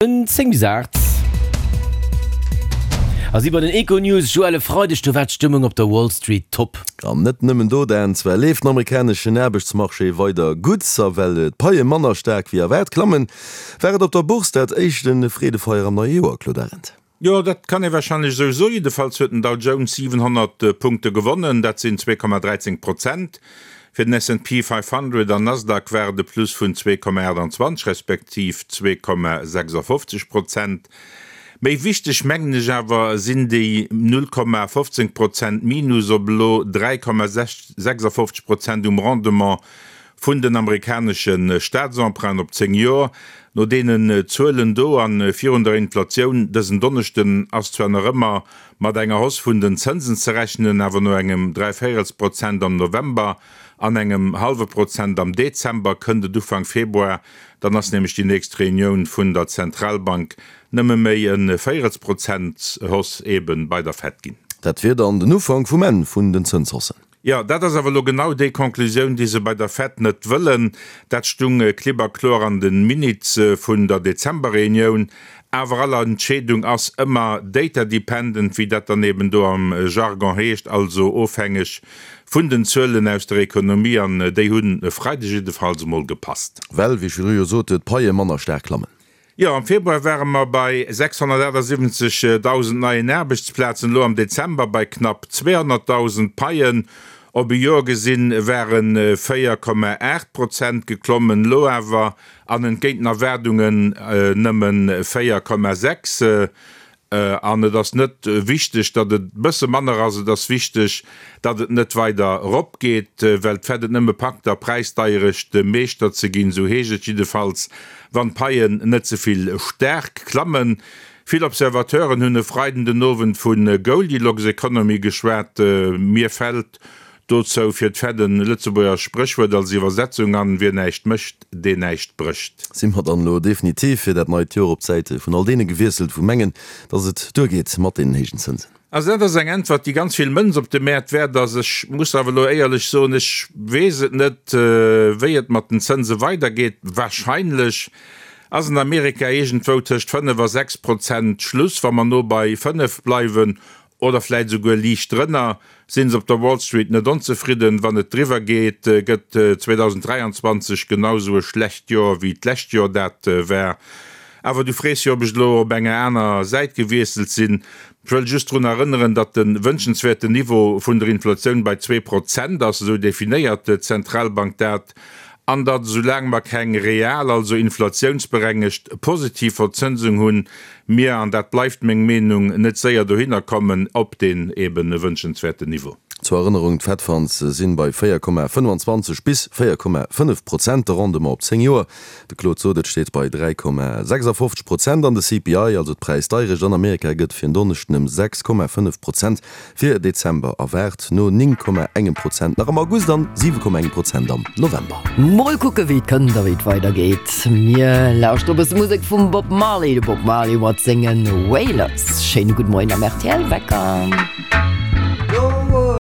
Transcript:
En 10 bis 8 a si bei den Econews. Joël, e Freideg, do war d'Stëmmung op der Wall Street top. An net nëmmen do, Dan. Zwar leeft den amerikaneschen Aarbechtsmarché weider gutt, a well d'Paie manner staark wéi erwaart klammen, war et op der Bourse dat éischte Freedefeier am neie Joer, Claude Arend. Jo, dat kann ee warscheinlech esou soen. Jiddefalls huet den Dow Jones 700 Punkte gewonnen, dat sinn 2,13 Prozent. Fir den S&P 500 an Nasdaq war et e Plus vun 2,28 respektiv 2,56 Prozent. Méi wichteg, mengen ech awer, sinn déi 0,15 Prozent Minus op elo 3,56 Prozent um Rendement vun den amerikanesche Staatsemprunten op 10 Joer. No deenen Zuelen do a virun der Inflatioun dësen Donneschden ass zwar nach ëmmer mat enger Hausse vun den Zënsen ze rechnen, awer no engem Dräivéierelsprozent am November an engem hallwe Prozent am Dezember kënnt et Ufank Februar, dann ass nämlech déi nächst Reunioun vun der Zentralbank, nëmme méi e Véierelsprozent Hausse eebe bei der Fed ginn. Dat wier dann den Ufank vum Enn vun den Zënshaussen. Jo, dat ass awer elo genau déi Conclusioun, déi se bei der Fed net wëllen. Dat stung klipp a kloer an de Minutes vun der Dezember-Reunioun. Awer all Entscheedung ass ëmmer data dependent, wéi dat dann eben do am Jargon heescht, also ofhängeg vun den Zuelen aus der Ekonomie. An déi hunn e Freideg jiddefalls emol gepasst. Well, wéi ech virdru jo sot, d'Paie manner staark klammen. Jo, am Februar ware mer bei 678.000 neien Aarbechtsplazen, elo am Dezember bei knapp 200.000. D'Paien op e Joer gesinn ware 4,8 Prozent geklommen, elo awer, an entgéint den Erwaardungen, nëmme 4,6. An et ass net wichteg, datt et e bësse manner ass, et ass wichteg, datt et net weider eropgeet, well d'Fed et nëmme packt, der Präisdeierecht Meeschter ze ginn, esou heescht et jiddefalls, wann d'Paien net ze vill staark klammen. Vill Observateuren hunn e Freiden den Owend vu Goldilocks Economy geschwat. Mir fält Dozou fir d'Fed en Lëtzebuerger Spréchwuert als Iwwersetzung an, Wien näischt mécht, deen näischt brécht. Si mer dann elo definitiv fir dat neit Joer op d'Säit vun all deene gewiesselt, wou mengen, dass et duergeet mat deenen héijen Zënsen? Also dat ass eng Äntwert, déi ganz vill Mënz op de Mäert wäert ass. Ech muss awer elo éierlech soen, ech weess et net, wéi et mat den Zënse weidergeet. Wahrscheinlech ass an Amerika iergendwou tëscht 5 a 6 Prozent Schluss, wa mer no bei 5 bleiwen oder vläit esouguer liicht drënner, sinn se op der Wall Street net onzefridden. Wann et driwwer geet, gëtt 2023 genau esou e schlecht Joer wéi d'lescht Joer dat war. Awer du frees jo, ob ech elo op enger aner Säit gewiesselt sinn. Ech wëll just drun erënneren, datt de wënschenswäerten Niveau vun der Inflatioun bei 2% ass, esou definéiert d'Zentralbank dat, an datt esoulaang mer keng real, also inflatiounsberengegt positiv Verzënsung hunn, mir, an dat bleift meng Meenung, net séier dohinner kommen op deen eben wënschenswäerten Niveau. Zur Erënnerung, D'Fed Funds sinn bei 4,25 bis 4,5 Prozent, de Rendement op 10 Joer, de Claude sot et, steet bei 3,56 Prozent an de CPI, also d'Präisdeirecht an Amerika, gëtt fir en Donneschden ëm 6,5 Prozent Fir Dezember erwaart, no 9,engem Prozent nach am August an 7,engem Prozent am November. Mol kucke wéi et kënnt a wéi et weider geet. Mir lauschtere e bësse Musek vum Bob Marley, de Bob Marley mat senge Wailers. Schéine gudde Moien am rtl Wecker.